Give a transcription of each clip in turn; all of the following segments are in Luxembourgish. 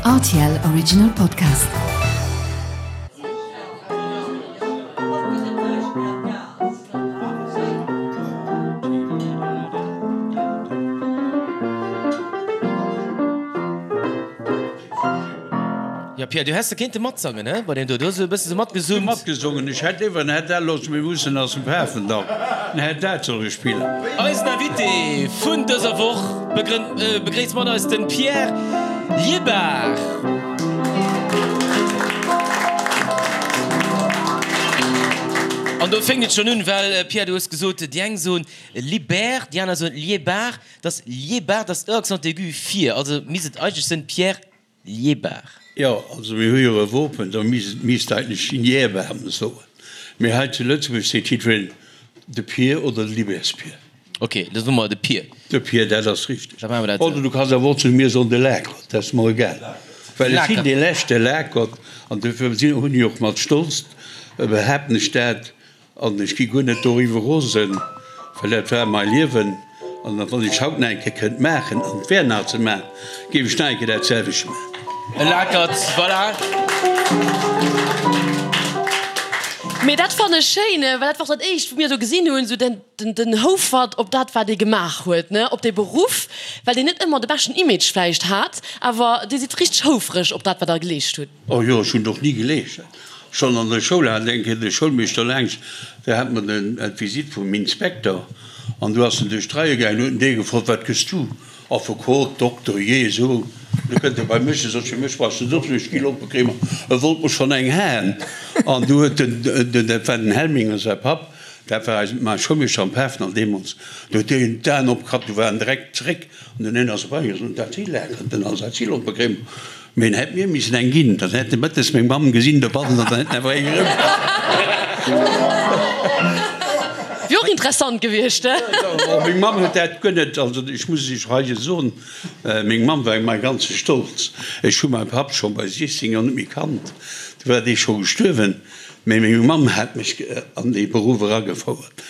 Rtl Original Podcast. Jo Pierre, du häss de kéinte matsangen, he, bei deem do. Du hues e bësse sou matgesummt. Matgesongen, ech hätt iwwer den Här Dellos, mir mussen ass dem Pafendall, den Här dat solle spillen. Eisen Invité vun dëser Woch begréisst mat eis den Pierre Liebard. An do fénkt et schonn un, well Pierre, du hues gesot, déi eng soen Libert, déi aner soen Liebard. Et ass Liebard, et ass e Accent aigu vir, also misst et eigentlech sënn Pierre Liébar. Jo, also mir hu jo e Wopen, do misst eigentlech Liébar soen. Mee hei zu Lëtzebuerg seet jiddwereen de Pier oder de Libertspier. Ok, da soe mer de Pier. De Pier, dat ass richteg. Da maache mer dat esou. Oder du kanns awer och zu mir soen de Lakert, dat ass mer egal. Well ech sinn dee leschte Lakert an dofir hunn ech och mat Stolz, behaapten ech dat, An ech gi guer net doriwwer rosen, well dat war mai Liewen. An wann ech haut nach eng Kéier kënnt maachen, an et wär nach ze maachen, géif ech nach eng Kéier dat selwecht maachen. E Lakert, voilà. Mee dat fannen ech schéin, well dat war och dat éischt wou mir esou gesinn hunn, esou den den Houfert op dat wat ee gemaach huet, ne, op dee Beruff, well deen net ëmmer de beschten Image vläicht hat, awer dir sidd richteg houfreg op dat wat der geleescht hutt. Oh jo, ech hunn och ni geleescht. Schonn an der Schoul hat eng Kéier de Schoulmeeschter laangs, do hat mer den d'Visite vum Inspekter an du ass en duerch d'Reie gaangen, huet en dee gefrot, Wat gëss du? Affekot, Dokter, jee esou. Du kënnt e bei mech, e sot, fir mech brauchs de net opzehuelen, ech gi Lompekremer. E wollt mer schonn eng haen an du huet den, den, dat war den Helminger säi Papp, dat war eisen, mäi Schoulmeeschter am Pafendall deemools, du huet deen d'Aen opgeklappt, du war en direkt zeréck an den een ass erbei gaangen, sot, Dat si Laken, den Alsacilompekrem. Mee en hätt mir missen eng ginn, dann hätt e mëttes meng Mamm gesinn dobannen an dann hätt en awer eng erëm. Wier och interessant gewiescht, he? Meng Mamm huet dat guer net, also ech muss iech hei soen, meng Mamm war mäi ganze Stolz. Ech hu mäi Papp scho bei 16 Joer net méi kannt, du war dee scho gestuerwen. Mee meng Mamm hat mech an dee Beruff eragefouert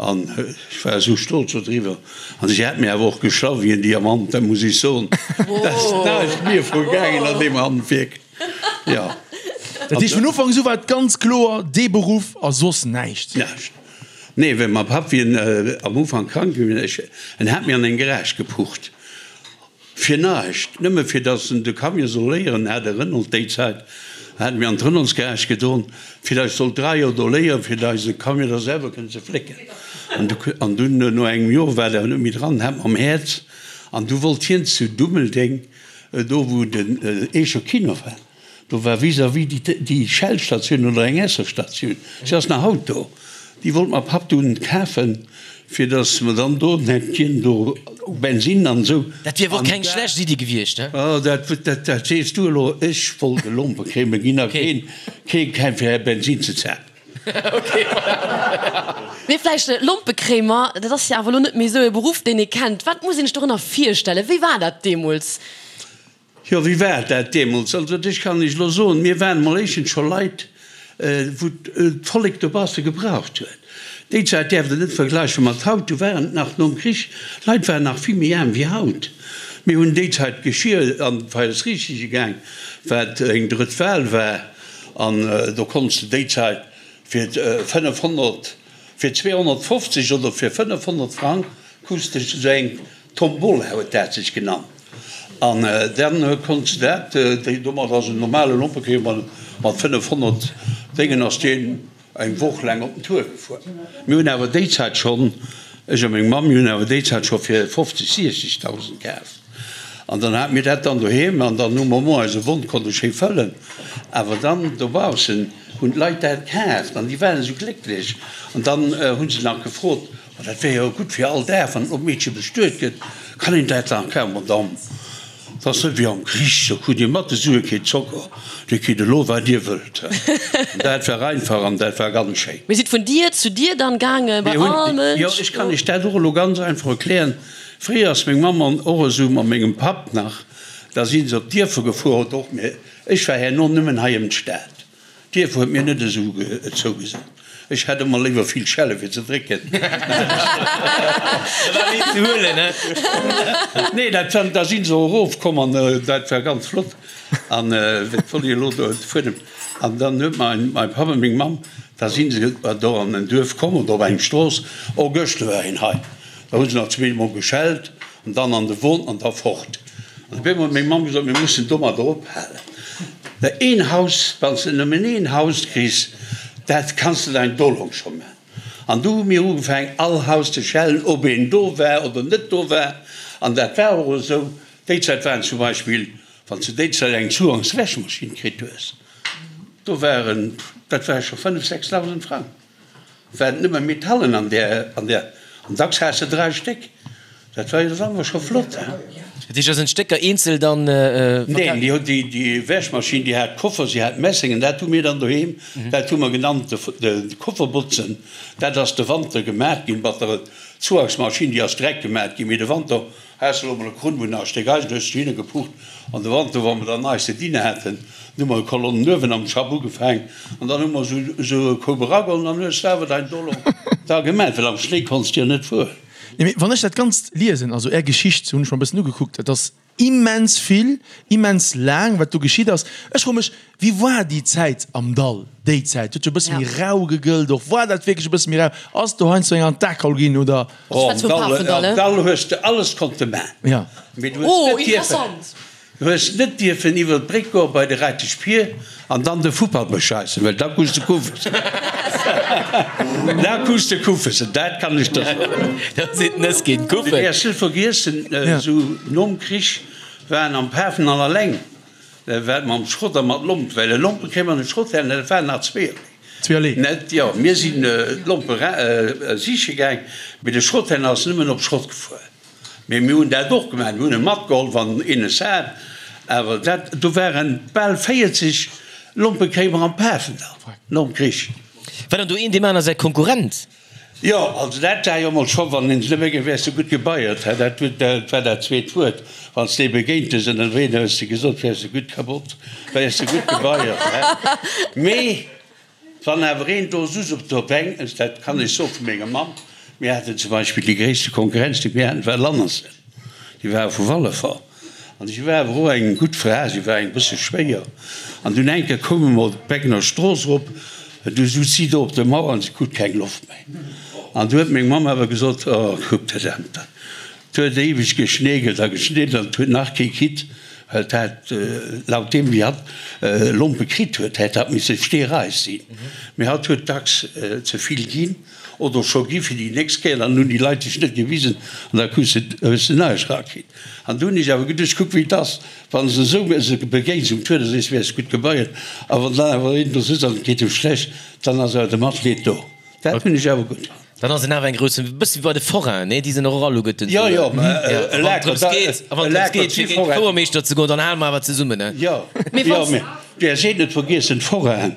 an ech war esou stolz dodriwwer. An si hat mir awer och geschlaff wéi en Diamant, dat muss ech soen. Dat ass näischt mir vu gaangen an deem Handwierk, jo. Dat heescht, vun Ufank u war et ganz kloer, dee Beruff a soss näischt? Näischt. Nee, well mäi Papp, wéi en am Ufank krank ginn ass, en hat mir an eng Garage gepucht. Fir näischt, nëmme fir datt en de Camion soll léieren, hat e Renault déi Zäit, hat mir an d'Renaultsgarage gedon, fir datt ech sollt 3 Joer do léieren, fir datt ech de Camion da selwer kënnt ze flécken. An dunn, no engem Joer, war der net méi dran, hat mam Häerz, an du wollt hien zu Dummeldeng, do wou den Eecher Kino war, Do war vis-à-vis déi Shell-Statioun oder eng Esso-Statioun, se ass nach haut do, déi wollt mer Papp dunn kafen, fir datt mer dann do hätt hien do Bensinn an esou. Dat wier awer och keng schlecht Iddi gewiescht, he? Oh, dat, dat, dat sees du elo. Ech wollt e Lompekrémel ginn a keen, keen, keen fir Bensinn ze zapen. Ok, voilà. Mee vläicht Lompekréimer, dat ass jo awer elo net méi esou e Beruff, deen ee kennt. Wat muss een sech dorënner virstellen? Wéi war dat deemools? Jo, wéi war dat deemools? Also ech kann Iech elo soen, mir waren emol éischtens scho Leit, wou d'Vollek dobausse gebraucht huet. Déi Zäit däerft Der net vergläiche mat haut, du waren et nach nom Krich, d'Leit waren nach vill méi aarm wéi haut. Mir hunn déi Zäit Geschir an d'Feiersriichtige gaang, wat eng drëtt Wal war, an do konntst de déi Zäit fir 500, fir 250 oder fir 500 Frang krus de esou eng Tombola huet dat sech genannt. An dann konnt se dat, déi domat ass en normale Lompekeeër mat 500 Déngen ass deen eng Woch laang op den Tour gefuer. Mir hunn awer déi Zäit schonn, ech a meng Mamm, mir hunn awer déi Zäit scho fir 50, 60.000 kaf. An dann hate mir dat dann doheem an dann hu mer mol eise Won konnte schéi fëllen. Awer dann dobaussen hunn d'Leit dat kaaft an déi waren esou glécklech. An dann hu se nach gefrot, Ma dat wär jo gutt fir all Dag, wann en Meedche bestuet gëtt, kann een dat dann kafen. Madame, 't ass net wéi am Krich, do krut Dir mat de Sue kee Zocker, Dir kritt elo wat Dir wëllt. An dat war einfach an dat war ganz schéin. Mir sidd vun Dier zu Dier dann gaangen, bei all Mënsch. Jo, ech kann Iech dat och elo ganz einfach erklären. Fréier ass meng Mamm an och esou mat mengem Papp nach, da si se op d'Dierfer gefuer, oder och mir, ech war herno nëmmen hei ëm d'Stad. D'Dierf huet mir net esou zougesot. Ech hätt ëmmer léiwer vill Schelle fir ze drécken. Da war méi ze huelen, he? Nee, dat war, da si se och erofkomm an dat war ganz flott. An wat wollt ech elo do fuerdem? An dann huet mein, mein Papp a meng Mamm, da si se do an en Duerf komm oder op eng Strooss, oh gëschter war een hei. Da hu se nach zweemol geschellt an dann an de Won an da fort. An op eemol huet meng Mamm gesot, mir mussen domadder ophalen. Well een Haus, wann s de nëmmen een Haus kriss, dat kanns de dein Dolong scho man. An du hu mir ugefaangen, all Haus ze schellen, ob een do war oder net do war. An dat war och esou. Déi Zäit waren zum Beispill, wann s de déi Zäit eng Zugangswäschmaschinn kritt hues, do waren, dat ware scho 5, 6.000 Frang. Waren nëmme Metallen an där, an där, an dacks has de 3 Stéck. Dat war jo dann awer scho flott, hein? Dat heescht, da sinn d'Stécker eenzel dann verkaf? Neen, déi huet, déi, déi Wäschmaschinn, déi hat Koffer, si hat Messeng, an dat hu mir dann doheem, dat hu mer genannt de, de Kofferbotzen. Dat ass de Wanter gemat ginn, mat der Zuagsmaschinn, déi ass direkt gemat ginn, mee de Wanter Has de elo mol e Krunn wou nach e Stéck Eisen hues du hinne gepucht an de Wanter wa mer dann neist ze dinne haten, dann hu mer e Kolonnen uewen am Schapp ugefaang an dann hu mer esou esou e Koup erageholl an dann hues de awer dein Dolong da gemat, well am Schnéi konns de jo net fueren. Nee, mee wann ech dat Ganzt liesen, also Är Geschicht hunn ech mer e bëssen ugekuckt, dat ass immens vill, immens laang, wat do geschitt ass. Ech froe mech, Wéi war déi Zäit am Dall? Déi Zäit huet jo e bësse méi rau gegëllt och. War dat wierklech e bësse méi rau? Ass do heiansdo eng an d'A geholl ginn oder? Oh, am Dall, am Dall hues de alles konnte man. Ja. Mee du hues net dierfen, du hues net dierfen iwwer d'Bréck goe bei de Reitesch Pier an dann de Fuppert bescheissen, well da krus de Kuffessen. Da krus de Kuffessen, dat kann ech der soen. Da sinn d'Nëss ginn, d'Kuffen. Du däerfs net vergiessen, esou nom Krich waren am Pafendall alleng Dat war mam Schrott a mat Lomp, well e Lompe kréie mer net Schrott her, dat waren nach zweeërlee. Zweeërlee? Net, jo, mir sinn d'Lompe siche gaang, mee de Schrotthändler ass nëmmen op Schrott gefuer. Mee mir hunn dat och gemaach, mir hunn e matgeholl, wann een es hat, awer dat, do waren bal 40 Lompe kréie mer am Pafendall nom Krich. War dann do een deem aner säi Konkurrent? Jo, also dat war jo emol scho, wann een se net méi, wäers de gutt gebeiert, hä, dat dat war dat zweet Wuert, wann s de ee begéint hues ënnerwee, da hues de gesot, wäers de gutt kabott, wäers de gutt gebeiert, hä. Mee wann awer een do souz op der Bänk, dat kann ech soe vu menger Mamm, mir haten zum Beispill déi gréisste Konkurrenz, déi mir haten, war Lannersen, déi ware vu Wallefer. An si war awer och eng gutt Fra, si war eng bësse schwéier. An dunn eng Kéier koume mer op d'Beckener Strooss erop, du sutz si do op der Mauer an si krut keng Loft méi. An du huet meng Mamm awer gesot, Oh, kuck dat Amt, dat huet éiweg geschneekelt a geschneekelt an et huet nach kee kritt, well et hat, laut deem wéi hatt Lompe kritt huet, hätt hatt misse steereis sinn. Mee hatt huet dacks ze vill ginn. Oder scho gi fir déi nächst Kéier, dann hunn déi Leit sech net gewisen an da krus de, hues de näischt erakritt. An du hunn ech awer geduecht, kuck wéi et ass, wann s de esou se begéins um Tour, da sees de, wäers gutt gebeiert, a wann dann awer een do sëtzt an et geet em schlecht, dann ass awer de Matleed do. Dat hunn ech awer gutt fonnt. Dann ass en awer eng grouss, e bësse wéi bei de Forainen, nee? Déi sinn och alleguerten esou. Jo, jo, mä e Laker, da, e Laker, a wann et drëms geet, fir géint de Fouermeeschter ze goen, dann hale mer awer zesummen, ne? Jo, jo, mä där seet net vergiessen, d'Forainen,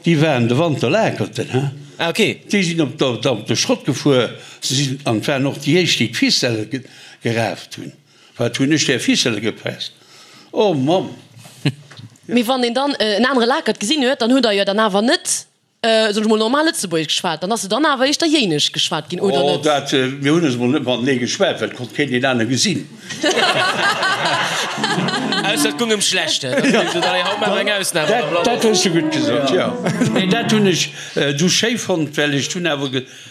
Déi waren de Wanter Lakerten, he? Ah, ok. Déi sinn op der, op de Schrott gefuer. Se sinn, an et waren och déi éischt, déi d'Ficelle geraaft hunn. Wat hunn ech där Ficelle gepresst? Oh Mamm! Mee wann een dann en anere Lakert gesinn huet, dann hutt Der jo dann awer net, soen ech mol, normal Lëtzebuergesch geschwat. Dann ass jo dann awer éischter Jéinesch geschwat ginn, oder Oh, net? dat, mir hunn eis emol net matenee geschwat, well et konnt keen deen anere gesinn. Ausser et gung ëm schlecht. Dat hues de gutt gesot, jo. Nee, dat hunn ech du schéi fonnt, well ech hunn awer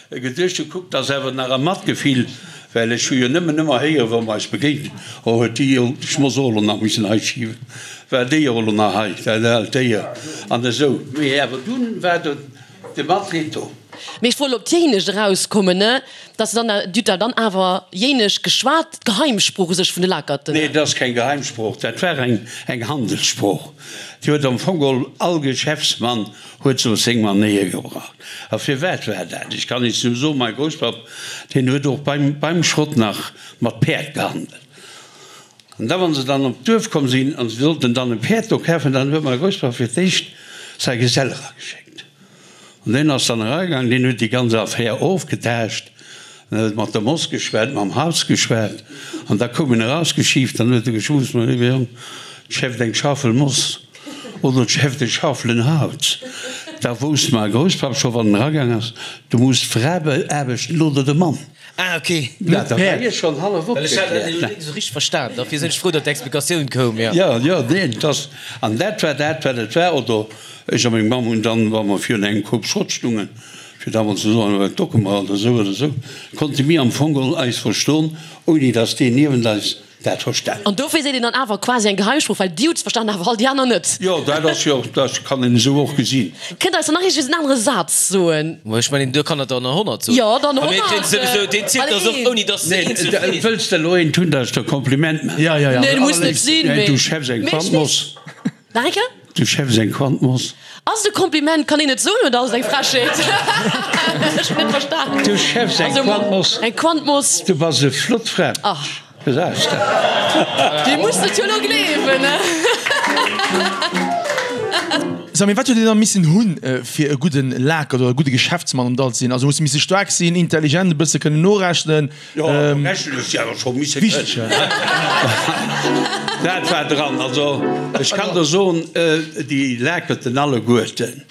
geduecht, du kuck, 't ass awer nach e Matgefill, well ech hu jo nëmmen ëmmer héieren, wa mer eis begéint, oh huet déi jo, ech muss och elo nach missen hei schiwen, war déi och elo nach hei, dat aalt Déier an esou. Mee awer dunn war do de Matleed do. Mee ech wollt op d'Jéinescht erauskommen, ne, dass se dann, Dir hutt da dann awer Jéinesch geschwat, d'Geheimsprooch u sech vun de Lakerten? Nee, dat ass keng Geheimsprooch, dat war eng, eng Handelssprooch. Déi huet am Fong geholl all Geschäftsmann huet se op seng Manéier gebraucht. A firwat war dat? Ech kann Iech nëmme soen, mäi Grousspapp, deen huet och beim, beim Schrott nach mat Päerd gehandelt. An da wann se dann op d'Duerf komm sinn an se sollten dann e Päerd do kafen, dann huet mäi Grousspapp fir d'éischt säi Gesell erageschéckt. An deen ass dann eragaangen, deen huet déi ganz Affär ofgetaascht, en huet mat der Moss geschwat, mam Haus geschwat, an da koum en erausgeschiift, dann huet e geschwuss, Mä léiwe Jong, d'schäfft eng Schaufel Moss oder d'schäfft e Schaufelen Haus. Da wousst mäi Grousspapp scho wann en eragaang ass, du muss d'Fra beaarbechten oder de Mann. Ah ok. Ja, da war hie schonn hallef Well ech hat dat elo net esou richteg verstan, dofir sinn ech frou, datt d'Explikatioun koum, jo. Jo, jo, neen, et ass, an dat war dat, wat et war. Oder ech a meng Mamm hunn dann, wa mer virun engem Koup Schrott stungen, fir da mol ze soen, wat docke mer oder esou oder esou, konnte mir am Fong geholl eis verstoen, ouni datt deen niewent eis dat verstan. An dofir seet een dann awer quasi eng Geheimsprooch, well dir hutt se verstan, awer all déi aner net. Jo, dat ass jo, dat kann een esou och gesinn. Kënnt der eis dann nach iergendwéi en anere Saz soen? Ma ech mengen, do kann der der nach 100 soen. Jo, dann A mir 100. kréien souwisou, deen zielt eis och, ouni dass se eenzel Nee, freet. wëlls de elo eent hunn, dat ech der Kompliment maachen? Ja, ja, ja. Nee, muss net sinn, mee. Du schäffs eng Mee ech Quant Moss. Nach eng Kéier? Du schäffs eng Quant Moss. Ass et e Kompliment? Kann een et soen oder ass et eng Frechheet? Ech hunn net verstan. Du schäffs eng Quant Moss. Eng Quant Moss. Du bass e flott Fra. Ach. Gesäis de. Dir musst et jo elo gleewen, ne? Samy, wat huet een da missen hunn, fir e gudden Laker oder e gudde Geschäftsmann am Dall ze sinn? Also hues de misse staark sinn, intelligent, e bësse kënnen norechnen? Jo, rechnen hues de awer scho misse kënnen. Dat war dran. Also ech kann der soen, déi Lakerten alleguerten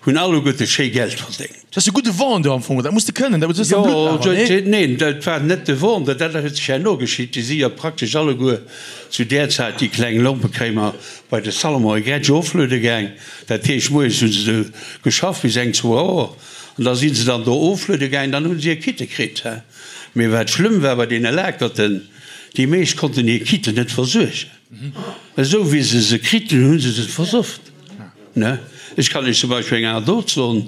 hunn alleguerte schéi Geld verdéngt. Dat ass e gudde Vendeur am Fong, dat muss de kënnen, dat hues de am Blutt awer, nee? Neen, dat war net de Vendeur, dat huet sech herno geschitt. Déi si jo praktesch alleguer zu där Zäit, déi kleng Lompekréimer, bei de Salomon e Gretsch ofluede gaang. Dat heescht, moies hu se do geschafft bis eng, zwou Auer an da si se dann do ofluede gaang, dann hu se hir Quitte kritt. Mee wat schlëmm war bei deene Lakerten, déi meescht konnten hir Quitte net versuergen. Esou wéi se se kriten, hu se se versofft. Ne? Ech kann Iech zum Beispill eng Anekdot soen,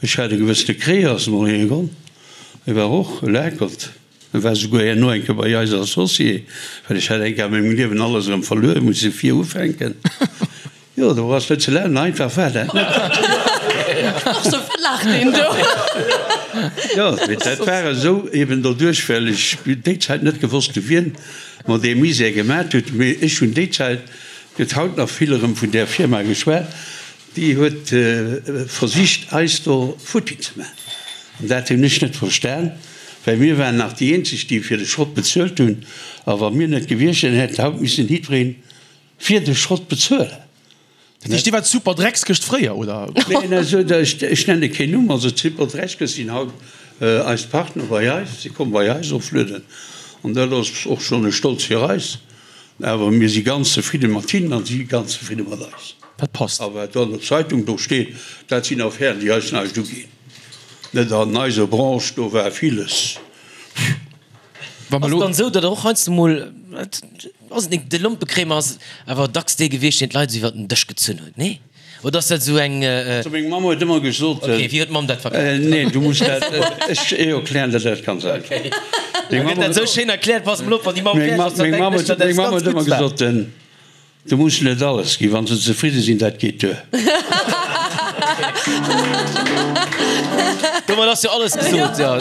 Ech hat e gewëssene Kreas mol iergendwann, e war och e Lakert, e war souguer herno eng Kéier bei eis Associé, well ech hat eng Kéier a mengem Liewen alles erëm verluer, muss e vir ufänken. Jo, do ass net ze lachen, einfach war dat net. Och sou, wat laacht deen do? Jo, mee dat war esou eben doduerch, well ech déi Zäit net gewosst hu wien mer dee Misär gemat huet, mee ech hunn déi Zäit, Gëtt haut nach vill erëm vun där Firma geschwat, déi huet versicht eis do futti ze maachen. An dat hunn ech net verstan, well mir waren nach déi eenzeg, déi fir de Schrott bezuelt hunn. A wa mir net gewiescht wären, hätt haut missen jiddweree fir de Schrott bezuelen. Dat heescht, Dir waart d'Superdreckskëscht fréier, oder? Neen, also ech nenne keen Numm. Also d'Superdreckskëscht sinn haut eis Partner bei eis, si komme bei eis oflueden. An dat ass och schonn e Stolz fir eis. Awer mir si ganz zefridde mat hinnen a si ganz zefridde mat eis. Dat passt. A wat do an der Zeitung do steet, dat sinn Affären, déi eis näischt uginn. Net an eiser Branche, do war villes. Wa mer Ass elo. et dann esou, datt der och heiansdo mol, ass et net, de Lompekréimer ass awer dacks dee gewiescht, deen d'Leit esou iwwer den Dësch gezunn huet, nee? Oder ass dat esou eng. Also meng Mamm huet ëmmer gesot. Ok, wéi huet d'Mamm dat verkaaft? Neen, du muss dat, ech erklären der dat ganz einfach. Ok, da gëtt dat esou schéin erkläert, pass mol op, wann déi Mamm fäerdeg ass, dann Meng denken ech, datt Mamm eppes ganz huet ëmmer Guddes war. gesot, du muss net alles ginn, wann se zefridde sinn, dat geet duer. Domat ass jo alles gesot, jo.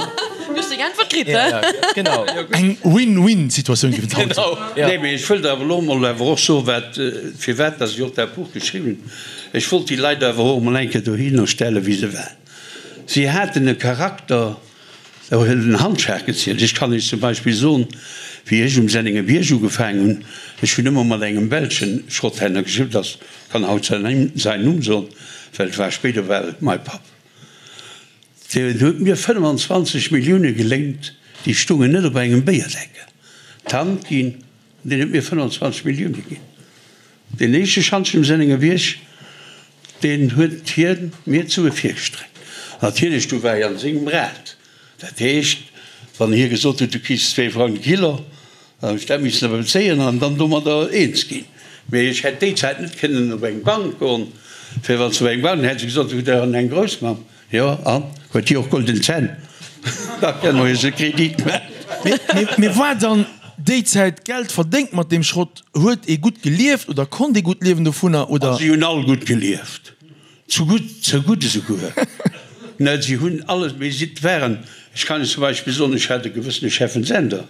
Du hues deng Äntwert kritt, Ja, he? ja, genau. Eng Win-Win-Situatioun géif et haut soen. Genau, ja. Nee, mee ech wëllt awer elo emol awer och soen, wat, firwat dass ech och dat Buch geschriwwen hunn. Ech wollt déi Leit awer och emol eng Kéier dohinner stellen, wéi se waren. Si haten e Charakter, do huet en Handschlag gezielt. Ech kann Iech zum Beispill soen, wéi ech um Sennengerbierg ugefaangen hunn, ech hunn ëmmer mat engem belschen Schrotthändler geschriwwen, dat kann haut säin Numm soen, well et war spéider war et mäi Papp. Deen huet mir 25 Millioune geléint, déi stungen net op engem Béierdeckel. D'Hand ginn, an deen huet mir 25 Millioune ginn. Deen éischte Schantjen um Sennengerbierg, deen huet hie mir d'Sue virgestreckt. Natierlech, du war ech an sengem Rad. Dat heescht, wann hie gesot huet, du kriss zwee Frang de Kilo, dann hunn ech dat missen awer bezéien an dann domadder eens ginn. Mee ech hätt déi Zäit net kënnen op eng Bank goen, fir wann s de op eng Bank, dann hätt se gesot, du hutt der eng Groussmamm. Jo, an huet déi och golden Zänn? Da kënne mer jo se Kredit maachen. Mee war dann déi Zäit Geld verdéngt mat deem Schrott? Huet ee gutt gelieft oder konnt ee gutt liewen dovunner, oder? Si hunn all gutt gelieft, zu gutt, ze gutt esouguer. Net, si hunn alles, mee si waren, ech kann Iech zum Beispill soen, ech hat e gewëssene Cheffen Sender,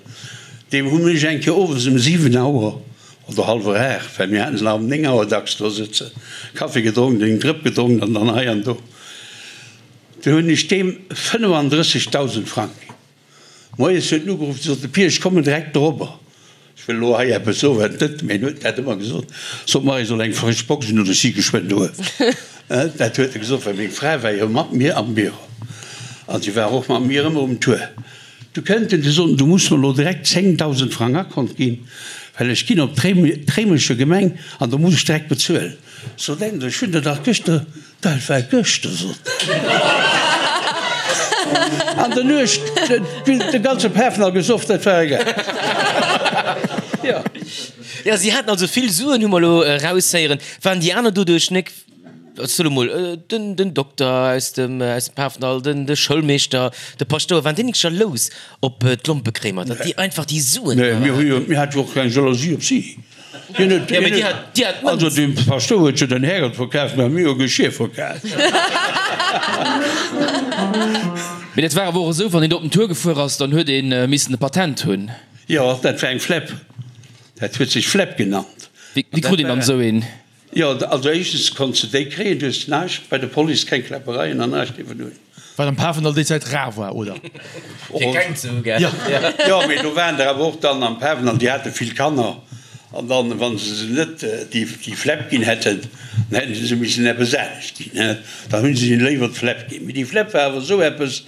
deem hunn ech eng Kéier owes ëm 7 Auer oder hallwer 8, well mir haten se nach ëm 9 Auer dacks do sëtzen, Kaffi gedronk, eng Drëpp gedronk an dann hei an do. Du hunn ech deem 35.000 Frang ginn. Moies huet en ugeruff, sot de Pier, ech kommen direkt dorobber. Ech wëll elo hei eppes soen, wat net, mee en huet dat ëmmer gesot, Sot mer, ech soll eng frësch Box hunn oder ech si geschwënn doheem. Dat huet e gesot, well meng Fra war jo mat mir am Büro an si war och mat mir ëmmer um Tour. Du kënnt en, du sot en, du muss mer elo direkt 10.000 Frang Akont ginn, well ech ginn op d'Réimecher Gemeng an do muss ech direkt bezuelen. Sot en, ech hunn der dach gëschter Dat war gëschter, sot en. An der Nuecht de ganze Pafendall gesoff, dat war egal. Jo. Jo, si haten also vill Suen, hu mer elo eraushéieren. Waren déi aner doduerch nek, ech soe mol, den, den Dokter aus dem, aus dem Pafendall, den, de Schoulmeeschter, de Paschtouer, waren déi nek jalous op d'Lompekréimer, datt déi einfach déi Suen Nee, mir hu jo, mir hate jo och keng Jalousie op si. Hien huet, Ja, mee déi hat, déi hat also d'Mënz. de Paschtouer huet jo den Härgott verkaaft, mä mir hu Geschir verkaaft. Mee dat war awer och esou, wann een do op den Tour gefuer ass, dann huet ee missen e Patent hunn. Jo, dat war eng Flepp. Dat huet sech Flepp genannt. Wéi krut een dann esou een? Jo, also éischtens konns de déi kréien, du hues näischt bei der Police, keng Kläppereien an näischt dierfen hunn. Wat am Pafendall déi Zäit rar war, oder? Fir keng ze hu, gell? Jo, jo, mee do waren der awer och dann am Pafendall, déi hate vill Kanner an dann, wa se se net déi Flepp ginn hätten, dann hätte se se missen eppes anescht ginn, he, dann hu se hinnen léiwer d'Flepp ginn. Mee déi Flepp war awer esou eppes,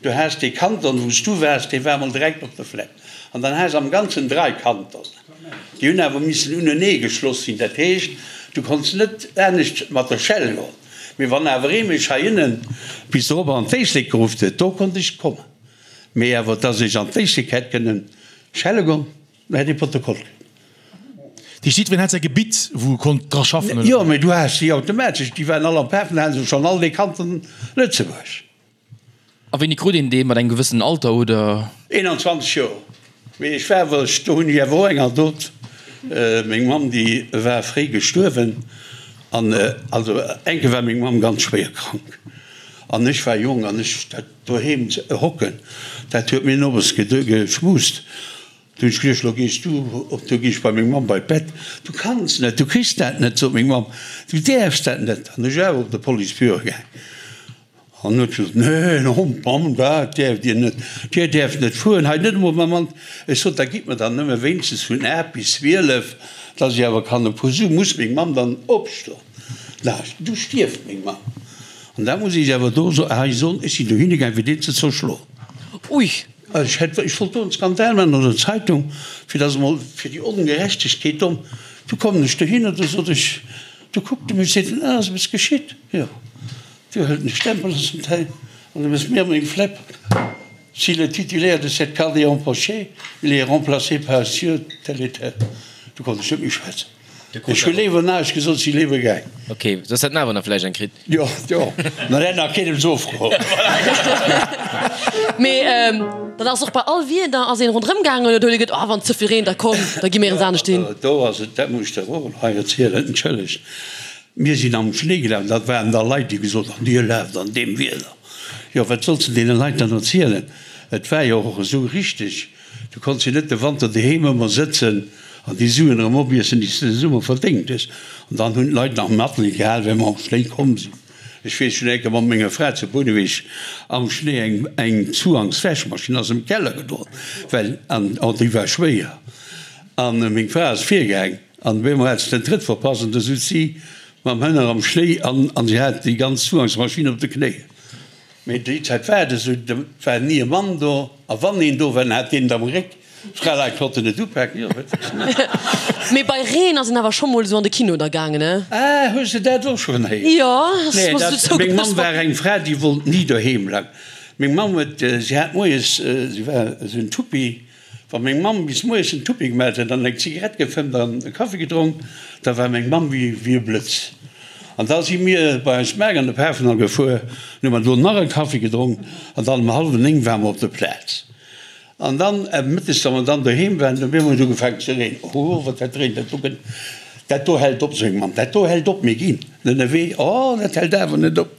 du has dee Kanton, wou s du waars, dee war emol direkt op der Flepp an dann has am Ganzen drai Kantonen. Déi hunn awer missen unenee geschloss sinn. Dat heescht, du konns net anescht mat der Schell goen. Mee wann awer ee mech heiënnen bis dorop an d'Éislek geruff huet, do konnt ech kommen. Mee awer dass ech an d'Éislek hätt kënnen schelle goen, do hätt ee Protokoll kritt. Dat heescht, jiddwereen hat säi Gebitt, wou e konnt dra schaffen, oder Jo, wéi? mee du has déi automatesch, déi waren all am Pafendall, hate se schonn all dee Kanton Lëtzebuerg. A wéini krut een dee? Mat engem gewëssenen Alter oder? 21 Joer. Mee ech war awer, do hunn ech awer och eng Anekdot. Meng Mamm déi war fréi gestuerwen an also eng Kéier war meng Mamm ganz schwéier krank an ech war jonk an ech dat doheem hocken, dat huet mir nowes geschmust. Du hunn ech geduecht, lo gees du op, du gees bei meng Mamm bei d'Bett. Du kanns net, du kriss dat net, sot meng Mamm, du däerfs dat net. An ech awer op de Policebüro gaang. An huet gesot, Nee, en Hond, Mamm, dat däerft Dir net, Dir däerft net fueren, hei net emol mam Mann. Ech sot, Da gitt mer dann nëmme wéinstens vun 8 bis 12, dass ech awer kann e puer Su. Muss meng Mamm dann opstoen? Na, du stierft meng Mamm. An dat muss ech awer do hei soen, ech sinn dohinne gaang, fir deen ze zerschloen. Ui! Ech hätt, ech wollt do en Skandal maachen an der Zeitung, fir dass emol, fir déi Ongerechtegkeet do. Du kommen ech dohinner, du sot ech, du kuckt e mech, seet en, Ah, ass eppes geschitt? Jo. Du hëlt en Stempel aus dem Teil an du mëss mir meng Flepp. Si le titulaire de cette carte est empoché, il est remplacé par Sieur tel et tel. Du konnt ech net méi schwätzen. Ech hu léiwer näischt gesot, si léiwer gaang. Ok, soss hätt en awer nach vläicht eng kritt. Jo, jo, mä dat hätt nach keen eppes ofgeholl. Mee dann ass och bei all Wieder ass een ronderëm gaangen oder huet ee geduet, oh wann et ze vill reent, da komm, da gi mir eens anescht hin. Do ass et, dat muss ech der och hei erzielen, entschëllegt. Mir sinn am Schnéi gelaf, dat waren da Leit, déi gesot hunn, Dir laaft an deem Wieder. Jo, wat solls de deene Leit dann erzielen? Et war jo och esou richteg, du konns jo net de Wanter doheem ëmmer sëtzen an déi Suen erëm opiessen, déi s de de Summer verdéngt hues. An dann hunn d'Leit nach Matleed gehal, well mer am Schnéi komm sinn. Ech weess, ech hunn eng Kéier mat menger Fra zu Bouneweg am Schnéi eng eng Zuhangswäschmaschinn ass am Keller gedroen, well, an déi war schwéier, an meng Fra ass virgaang, An op eemol hat se den Trëtt verpasst an du sutz si mam Hënner am Schnéi an an si hat déi ganz Zugangsmaschinn op de Knéien. Mee déi Zäit war et esou, do war ni e Mann do a wann een do war, dann hat deen et am Réck. D'Fraleit konnten net upaken, jo, wat wëlls de maachen? Mee bei Reen ass een awer scho mol esou an de Kino da gaangen, ne? Ah, hues de dat och schonn héieren? Jo, ass Nee, mer dat, esou meng Mamm zougepasst. war eng Fra, déi wollt ni doheem bleiwen. Meng Mamm huet, si hat moies, si war esou en Tuppi, Wa meng Mamm bis moies en Tuppi gemat huet an eng Zigarett gefëmmt an e Kaffi gedronk, da war meng Mamm wéi e Blëtz. An da si mir bei eis Maak an de Pafendall gefuer, an hu mer do nach e Kaffi gedronk an dann um hallwen 9 ware mer op der Plaz. An dann mëttes, wa mer dann doheem waren, op eemol huet et ugefaangen ze reenen. Oh, wat dat reent, dat do gëtt, dat do hält op, sou meng Mamm, dat do hält op, mir ginn ënnerwee. Oh, dat hält awer net op.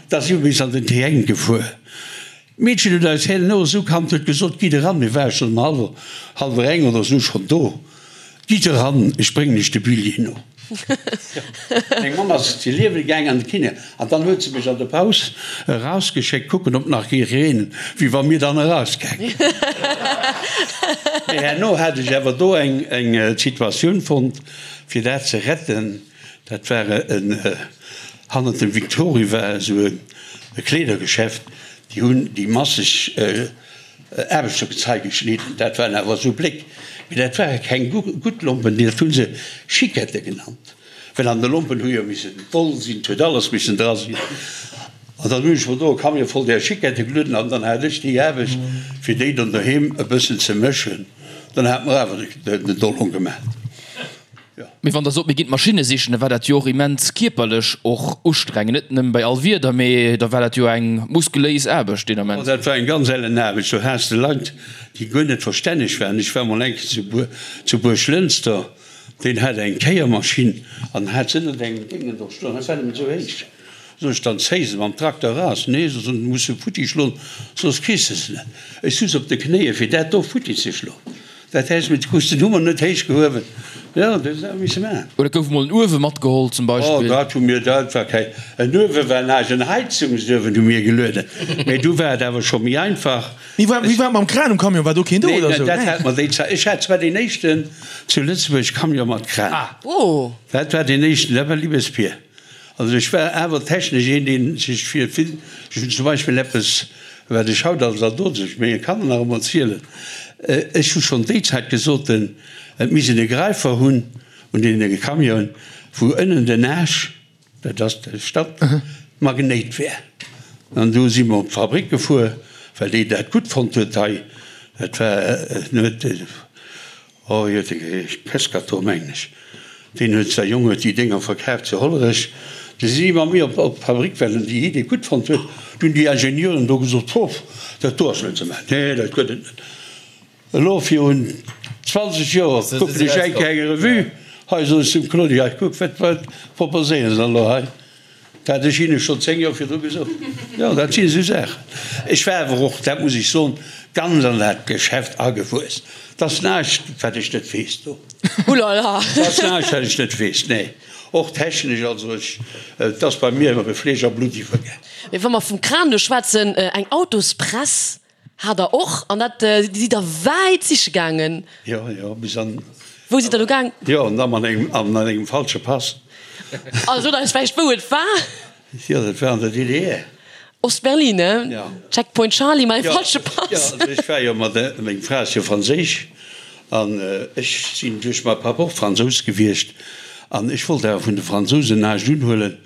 Da si mer bis an den T1 gefuer. D'Meedchen huet eis herno esou kannt, huet gesot, Gitt eran, mir ware schonn um hallwer, hallwer eng oder esou schonn do, gitt eran, ech bréngen iech de Billjee no. Meng Mamm ass zu Liewel gaang an de Kiné an dann huet se mech an der Paus erausgeschéckt kucken, ob nach géif reenen, wéi wa mir dann erausgaange. Mee herno hat ech awer do eng eng Situatioun fonnt, fir dat ze retten. Dat war en, hannert dem Victory war esou e Kleedergeschäft, déi hunn déi masseg Aarbechtergezei geschnidden. Dat waren awer esou Bléck, mee dat ware keng gutt Lompen, dat hu se Chiquette genannt. Well an de Lompen hu jo missen Woll sinn, 't huet alles missen dra sinn. An dann hunn ech mer do e Camion voll där Chiquette gelueden an dann hat ech déi Aarbecht, fir déi dann doheem e bëssen ze mëschen. Dann hat mer awer den Dollong gemaat. Jo. Mee wann Der sot, mir ginn d'Maschinne sichen, da war dat jo och immens kierperlech och ustrengend, net nëmme bei all Wieder, mee da war dat jo eng muskuléis Aarbecht deen Ament. Oh, dat war eng ganz ellen Aarbecht. Do has de Leit, déi guer net verstänneg waren. Ech war mol eng Kéier zu Buerglënster. Deen hat eng Kéiermaschinn an hat se ënnert engem Déngen do stoen, dat war nëmmen esou héich. Sot ech, dann zéi se mam Trakter eras. Nee, sot en, muss se futti schloen, soss kriss de se net. Ech suz op de Knéie fir dat do futti ze schloen. Dat häss mit krus den Hummer net héich gehuewen. Jo, dat hues awer misse maachen. Oder gouf emol en Uewe matgeholl zum Beispill? Oh, dat hu mir, dat war keng, en Uewe war näischt, en Heizungsuewen hu mir gelueden. Mee du war et awer scho méi einfach. Wéi war et mam Kran um Camion? War do keen do oder sou? Nee, dat hat mer déi Zäit. Ech hat zwar deen éischten zu Lëtzebuerg Camion mat Kran. Dat war deen éischten, dat war Liebes-Pier. Also ech war awer technesch een, dee sech fir vill, ech hunn zum Beispill eppes, wat ech haut als Adult menge Kanner nach ëmmer zielen, ech hu schonn déi Zäit gesot, et misst een e Gräifer hunn un deene Camionen, wou ënnen den Aasch, Dat ass de Stadt Magnéit wär. An du si mer op d'Fabrik gefuer, well déi dat gutt fonnt huet hei. Dat war, en huet, oh wéi huet e geheescht, Pescator mengen ech, deen huet, säi Jong huet déi Dénger verkaaft zu Hollerech. Du si si mat mir op d'Fabrik, well en déi Idee gutt fonnt huet. Du hunn déi Ingenieuren do gesot, Hoff, dat do ass net ze maachen, nee, dat gëtt et net. Elo virun 20 Joer kucken ech eng Kéier eng Revue, hei sot ech zum Claudy, hei kuck, wat wat proposéiere se elo hei? Dat hat ech hinne schonn 10 Joer virdru gesot. Jo, dat sinn esou Saachen. Ech war awer och, dat muss ech soen, ganz an dat Geschäft agewuess. Dat ass näischt, wat ech net weess do. Oulala! Dat ass näischt, wat ech net weess, nee. Och technesch, also ech, et ass bei mir e Fleesch a Blutt iwwergaang. Mee wa mer vum Kran do schwätzen, eng Autospress Hat der och, an dat sidd der wäit siche gaangen. Jo, jo, bis an. Wou sidd der do gaang? Jo, an da mat engem, an engem falsche Pass. A sot eis vläicht wou et war? Jo, dat war an der DDR. Ost-Berlin, ne? Jo. Checkpoint Charlie mat engem falsche Pass. Jo, also ech war jo mat, meng Fra ass jo franséisch an ech sinn duerch mäi Papp och Fransous gewiescht an ech wollt awer vun de Fransousen näischt unhuelen.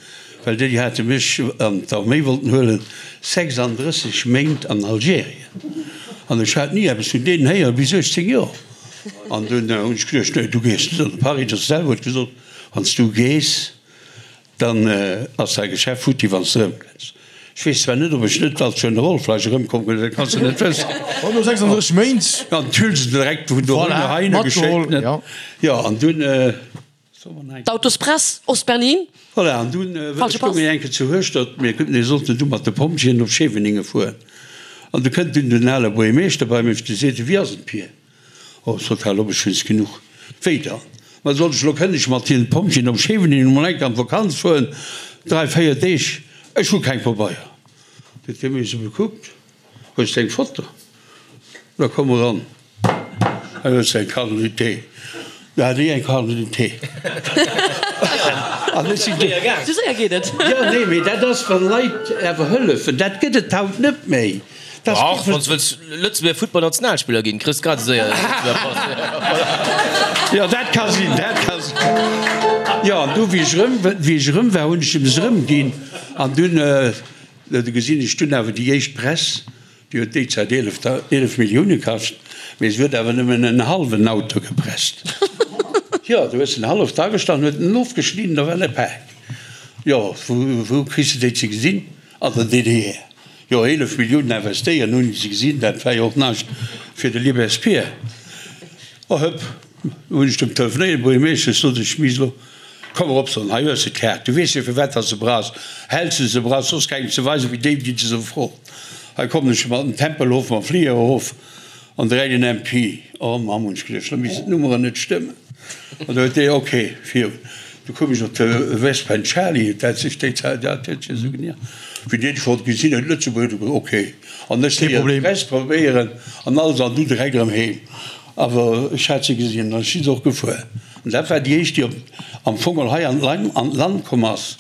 Well déi hate mech an d'Arméi wollten huelen, 36 Méint an Algerien. An ech hat ni eppes vun deenen héieren, bis 18 Joer. An dunn hunn ech geduecht, nee, du gees net. An de Paris de selwer huet gesot, Wann s du gees, dann ass däi Geschäft futti, wann s de erëmkënns. Ech weess zwar net, ob ech net als Generol vläicht erëmkomm ginn, dat kanns de net wëssen. Oh, no 36 Méint. An d'Hülsen direkt vun dohinner heihinner geschéckt, ne? Jo, an dunn. D'Autospress, Ost-Berlin. Voilà, an dunn stoung mir eng Kéier zu Hueschtert, mir mir sollten du mat de Pompjeeën op Scheveningen fueren. An du kënnt dunn den ale Buergermeeschter bei mech, de seet, Wéi ass et, Pir? Oh, sot hal op, ech hunn es genuch. Wéi dann? Ma soll ech elo kënnen ech mat hiren Pompjeeën op Scheveningen emol eng Kéier an d'Vakanz fueren, dräi, véier Deeg? Ech hu keng Pabeier. Du huet hie mech esou bekuckt. Hues de eng Foto? Da komm eran. Hei hues de eng Carte d'identité. Da hat hie eng Carte d'identité. An ech sinn du. Sou séier geet et. Jo, nee, mee dat ass, wa Leit awer hëllefen. Dat gëtt et haut net méi. Dat ass. Dach, wann s wëlls Lëtzebuerger Futtballnationalspiller ginn, kriss grad esou séier e Lëtzebuerger Pass. Jo, dat ka sinn, dat ka sinn. Jo, an du, wéi ech erëm, wéi ech erëm war, hunn ech em se erëmginn. An dunn. Do gesinn ech dunn awer déi éischt Press, déi huet déi Zäit 11 Millioune kascht, mee se huet awer nëmmen en hallwen Auto gepresst. Jo, du hues en halleft agestallt, huet en ofgeschnidden, da war e Pak. Jo, wou kriss de déi ze gesinn? An der DDR. Jo, 11 Milliounen investéieren, hunn se gesinn, dat war jo och näischt fir de Libespierre. Oh hëpp, hunn ech dem telefonéiert, Buergermeeschter, sot ech, misst elo Komm erop, Sonn, hei hues de d'Kaart. Du weess jo, firwat dass se brauchs. Häls de se brauchs, soss kengem ze weisen, wéi déi, déi de se froen. Hei kommen ech mat dem Tempelhof, mam Fliger erof an direkt en MP. Oh Mamm, hunn ech geduecht, lo missten d'Nummeren net stëmmen. An da huet dee, ok, virun. Du koum ech op de West Bend Charlie, dat sech déi Zäit, dat huet sech esou genannt. Wéi deen schonn gesinn huet, Lëtzebuerg, du gesot, ok. An ech Kee léieren Problem. d'Press probéieren an alles an du direkt erëm heem. Awer ech hat se gesinn an ech si se och gefuer. An dat war déi éischt, déi op, am Fong geholl hei an d'Land, an d'Land komm ass.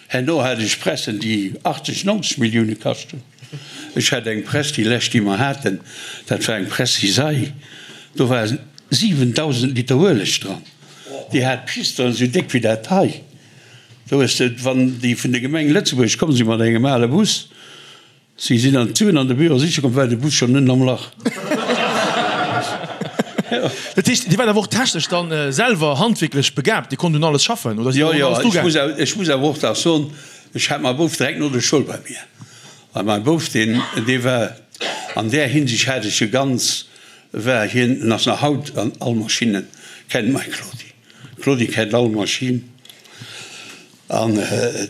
Herno hat ech Pressen, déi 80, 90 Millioune kascht hunn. Ech hat eng Press, déi lescht, déi mer haten, dat war eng Press Cisaille, do war 7.000 Liter Ueleg dran. Déi hat Pisteren esou déck wéi dat hei. Do hues de, wann déi vun der Gemeng Lëtzebuerg komm sinn mat engem ale Bus, si sinn an d'Suen an de Büro siche komm, war de Bus schonn ënnen am Lach. Dat heescht, Dir waart awer och technesch dann selwer handwierklech begaabt, Dir konnt un alles schaffen oder sidd Jo, och un jo, alles ech drugaangen? muss awer, ech muss awer och nach soen, ech hat mäi Bouf direkt no der Schoul bei mir. A mäi Bouf, deen, dee war an där Hinsicht hat ech e ganz, war hien, en ass nach haut an all Maschinne kennt mäi Claudi. Claudi kennt all Maschinn an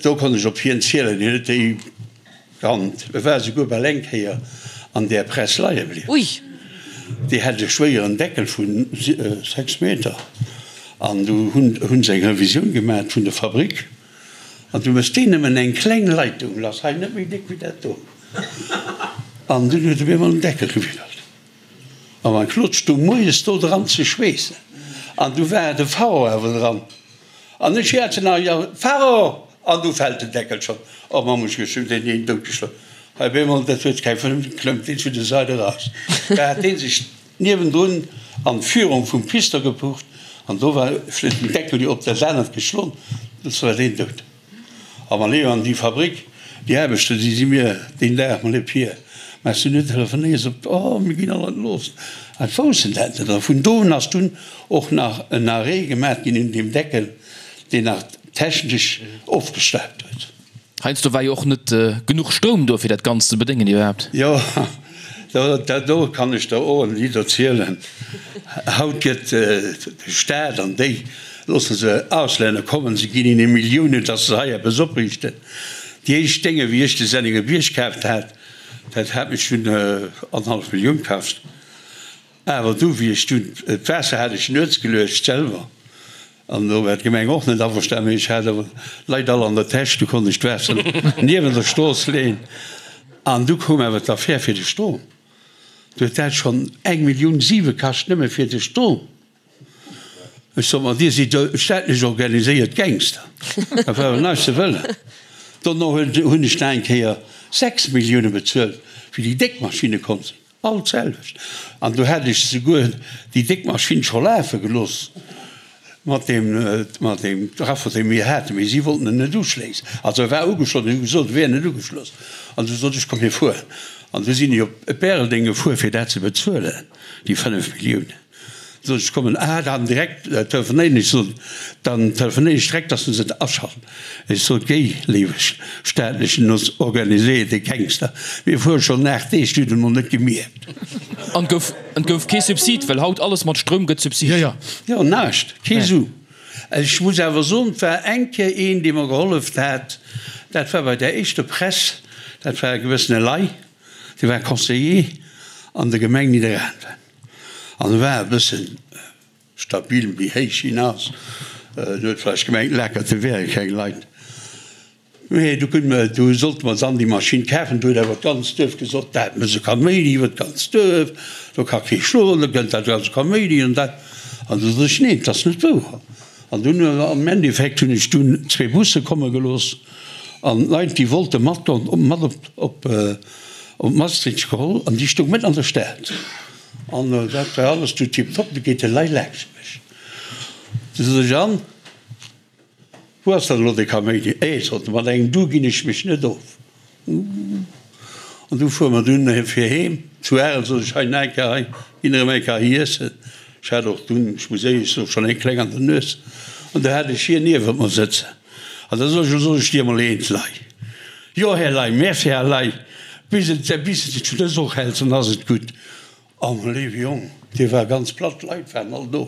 do konnt ech op hien zielen. Hien huet déi kannt. E war esouguer bal eng Kéier an där Press leie bliwwen. Ui! Déi hat e schwéieren Deckel vu 6 Meter an du hunn se eng Revisioun gemat vun der Fabrik. An du méchs deen nëmmen eng kleng Leitung lass, hei net méi déck wéi dat do. An dunn huet e mir emol den Deckel gewiddert. A mein Claude stung moies do dran ze schweessen. An du war de Faro awer dran. An ech schäerzen nach, Jo, Faro! An du fält den Deckel schonn. Oh Mamm, ech hunn deen een doutgeschloen. Hei op eemol, dat huet keng Fënn, klëmmt deen zu der Sait eraus. Da hat dee sech Niewendrun an d'Führung vum Pister gepucht an do war vläit den Deckel jo op dat anert geschlon, du war deen dout. A ma Léon, an déi Fabrik, déi Aarbechter, déi si mir deen Dag, ma Pierre, mä s du net telefonéiers op, oh mir ginn all entlooss. An d'woussen dat net. A vun do un ass dunn och nach en Arrêt gemaat ginn un deem Deckel, deen nach technesch ofgestaubt huet. Heiansdo war jo och net genuch Stroum do fir dat Ganzt ze bedéngen iwwerhaapt. Jo, dat do kann ech der och en Lidd erzielen. Haut gëtt de Staat an déi loosse se Auslänner kommen, se ginn hinne Milliounen, datt se hei eppes opriichten. Déi éischt Dénge wéi ech de Senningerbierg kaaft hat, dat hat mech dunn annerhallef Millioun kascht. Awer du, wéi ech dunn, d'Waasser hat ech nuets geluecht selwer, an do war d'Gemeng och net averstan, mee ech hat awer Leit all an der Täsch, du konnt ech d'Waasser niewent der Strooss leeën. An du koum awer d'Affär fir de Strom. Du huet dat schonn eng Millioun siwe kascht, nëmme fir de Strom. Ech sot, Ma Dir sidd jo staatlech organiséiert Gangster, dat war awer näischt ze wëllen. Dono hunn ech nach eng Kéier 6 Millioune bezuelt, wéi déi déck Maschinne komm sinn. All d'selwecht. An do hat ech souguer déi déck Maschinn scho lafe gelooss mat deem, mat deem Trafo, dee mir haten, mee si wollten en net uschléissen. Also e war ugeschloss, mee hu gesot, e wär net ugeschloss. An du sot ech, komm mir fueren. An du sinn ech op Bäreldeng gefuer, fir dat ze bezuelen, déi 5 Milliounen. Sot ech, kommen, ah, dann direkt telefonéieren. Ech sot, dann telefonéieren ech direkt, dass se se aschalten. Ech sot, Géi, léiwe staatlechen organiséierte Gangster, mir fuere schonn 8 Deeg, du hutt et emol net gemierkt. An et gouf, et gouf kee Subsid, well haut alles mat Stroum gëtt subsid. Jo, jo. Jo, näischt, kee Su. Ech muss awer soen, et war eng Kéier een, dee mer gehollef hat, dat war bei där éischter Press, dat war e gewëssene Ley, dee war Conseiller an der Gemeng Nidderaanwen. An e war e bëssen stabil, méi héich hien ass. En huet vläicht gemengt, Lakerte wäre keng Leit. Mee du kënne mer, du sollte mer dann déi Maschinn kafen. Du huet awer d'ganzt Duerf gesot, dat mécht e Kaméidi iwwer d'ganzt Duerf, do ka kee schloen, do kënnt dat ganze Kaméidi an dat. An du sot ech, neen, dat ass net wouer. An dunn am Endeffekt hunn ech dunn zwee Busse komme gelooss an d'Leit, déi wollte matgoen, mat op Op Maastricht geholl an déi stoung mëtten an der Stad an dat war alles du tiptop. Du geet de Lei laanscht mech, du sot ech, an wou ass dann elo de Kaméidi? Eh, sot e, mat engem Du ginn ech mech net of. An du fuere mer dunn fir heem zu Arel, sot ech, hei nach eng Kéier hei, ginn erëm eng Kéier hei iessen. Ech hat och dunn, ech muss éierlech soen, schonn eng kleng an der Nues an du hat ech hien niewent mer sëtzen. An da sot ech, Lo soll ech dir emol eent, Lei. Jo, Här Ley, merci, Här Ley, bis et bis et zu dës och hält, dann ass et gutt. Oh, mäi léiwe Jong, dee war ganz platt, d'Leit waren all do.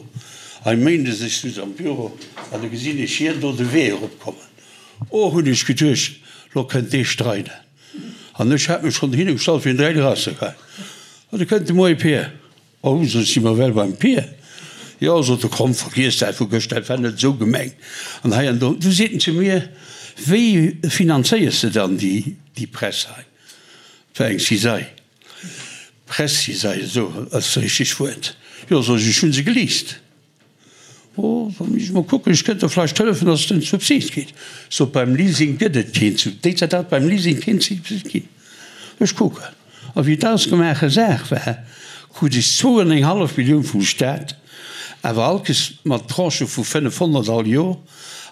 Hei méindes, ech sutz am Büro an du gesinn ech hien do de Wee eropkommen. Oh, hunn ech geduecht, lo kënnt dee streiden. An ech hat mech schonn dohinner gestallt, fir en direkt erauszegeheien. An du kënnt de Moie Pier. Oh, sou si mer well beim Pier. Jo, sot e, komm, vergiess dat vu gëschter, dat war net esou gemengt. An hei an do. Du seet en zu mir, Wéi finanzéiers de dann déi Press hei? Et war eng Cisaille, Press-Cisaille, esou ass dat richtegt Wuert. Jo, sot ech, ech hu se geleast. Oh, da muss ech mol kucken, ech kënnt der vläicht hëllefen, dass et en Subsid kritt. Sot, beim Leasing gëtt et keen Subsid. Déi Zäit hat et beim Leasing keen Subsid ginn. Ech kucken. A wéi et ausgemaache Saach war, krut ech zwou an eng hallef Millioun vum Staat, awer allkes mat Tranchë vu 500 all Joer.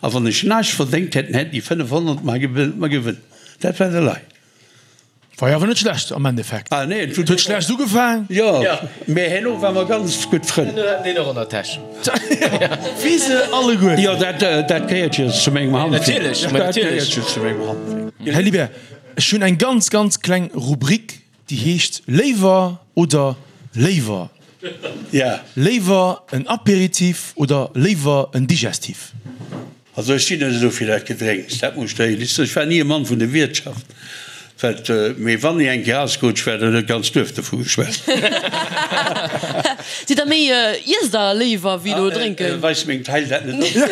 A wann ech näischt verdéngt hätt, hätten déi 500 mer gewënn. Dat war de Lei. War jo awer net schlecht am Endeffekt. Ah nee, et huet schlecht ugefaang. Jo, mee herno ware mer ganz gutt Frënn. Herno haten deen och an der Täsch. Wéi se alleguerten. Jo, dat, dat gehéiert jo zu mengem Handwierk. Natierlech, ma Dat natierlech. gehéiert jo zu mengem Handwierk. Här Libert, ech hunn eng ganz, ganz kleng Rubrik, déi heescht Léiwer oder léiwer. Ja. Léiwer en Apéritif oder léiwer en Digestif? Also ech sinn net esou fir dat Gedrénks, dat muss ech der éierlech soen. Ech war ni e Mann vun der Wiertschaft, wat, mee wann ee eng Kéier ausgerutscht war, dann huet d'ganz Duerf dovu geschwat. Sidd der méi, iesst der léiwer wéi elo drénken? Weist meng Taille dat net op?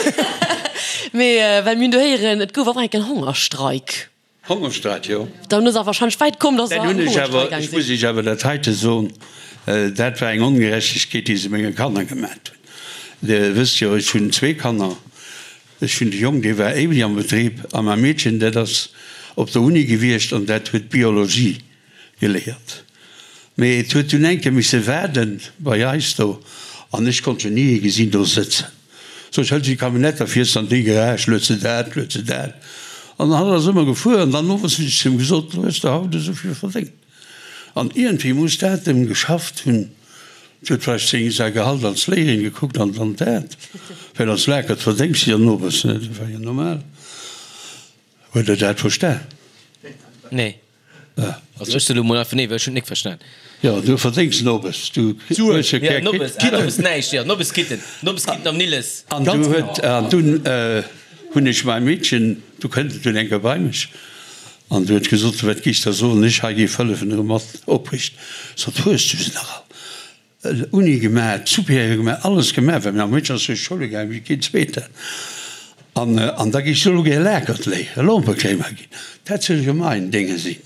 Mee well mir hunn do héieren, et gouf och eng Kéier en Hongerstreik. Hongerstreik, jo. Dann ass awer wahrscheinlech wäit komm, dass se Dann an hunn ech awer, Hongerstreik gaang ech muss sinn. Iech awer dat heite soen, dat war eng Ongerechtegkeet, déi se menge Kanner gemat hunn. Dir wësst jo, ech hunn zwee Kanner. Ech hunn de Jong, dee war éiweg am Betrib, a mäi Meedchen, dat ass op der Uni gewiescht an dat huet Biologie geléiert. Mee et huet dunn eng Kéier misse waarden bei eis do an ech konnt jo ni ee gesinn do sëtzen. Sou, ech hëls déi Camionnette a fiers an déi Garage, lued se dat, lued se dat. An hatt ass ëmmer gefuer an dann owes hunn ech zu him gesot, Lo hues de haut esou vill verdéngt. An iergendwéi muss dat em geschafft hunn. Et huet vläicht seng, säi Gehalt als Léierin gekuckt an dann dat, well als Lakert verdéngs de jo nowes, ne, dat war jo normal. Huet Der dat verstan? Nee. Also ech soe lo mol einfach nee, well ech hunn et nik verstan. Jo, du verdéngs Nobes, du hues jo keng Nobes, ah, Nobes näischt, jo, Nobes Kitten, Nobes Kitten am Nilles. An du huet, an dunn hunn ech mäi Meedchen, du kënnt et dunn eng Kéier bei mech an du huet gesot, wat géifs der soen, ech hei géif hëllefen erëm mat opriichten. Sot, hues du se nach all? Uni gemaach, Supérieur gemaach, alles gemaach, well mäi Meedchen ass duerch d'Schoule gaangen wéi keen Zweeten. An, an da géif se elo gär Lakert léieren, Lompekréimer ginn. Dat soll jo main Dénge sinn.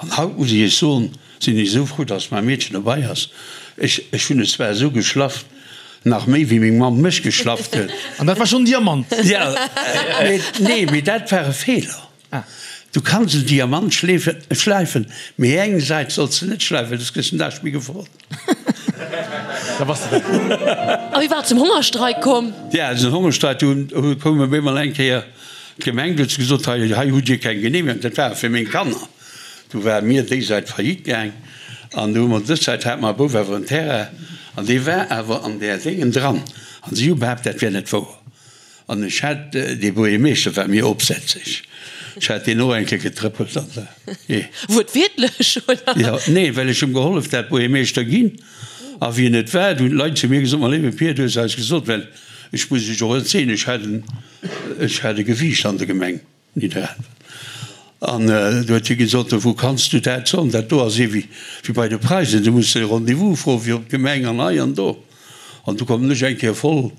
An haut muss ech Iech soen, sinn ech esou frou, dass mäi Meedchen dobei ass. Ech, ech hunn et zwar esou geschlafft, nach méi wéi meng Mamm mech geschlafft huet. An dat war schonn Diamant. Ja, mee, nee, mee dat war e Feeler. Du kanns en Diamant schläifen, mee eng Säit solls de net schläifen, soss kriss de den Dag méi gefrot. Da bass de weg. A wéi war et zum Hongerstreik komm? Ja, den Hongerstreik, do koum op eemol eng Kéier d'Gemeng, do huet se gesot, hei, hei hutt Dir keng Genehmegung. Dat war fir meng Kanner. Du ware mir déi Säit faillite gaang an du hu mer dës Säit, hate mer e Bouf awer en Terrain an dee war awer an där Déngen dran an si hu behaapt, dat wär net wouer. An ech hat, dee Buergermeeschter war mir opsätzeg, ech hat deen och eng Kéier getrëppelt an der, jee. Wuertwiertlech, oder? Jo, nee, well ech hum gehollef dat Buergermeeschter ginn. A wien et war, du hunn d'Leit zu mir gesot, Ma léiwe Pier, du hues eis gesot, well ech muss iech och erzielen, ech hat en, ech hat e Gewiicht an der Gemeng. Nidderaanwen. An du huet hie gesot, Wou kanns du dat soen? Dat do ass ee wéi bei de Preisen, du muss e Rendez-vous froen fir op d'Gemeng an hei an do. An du kommen ech eng Kéier voll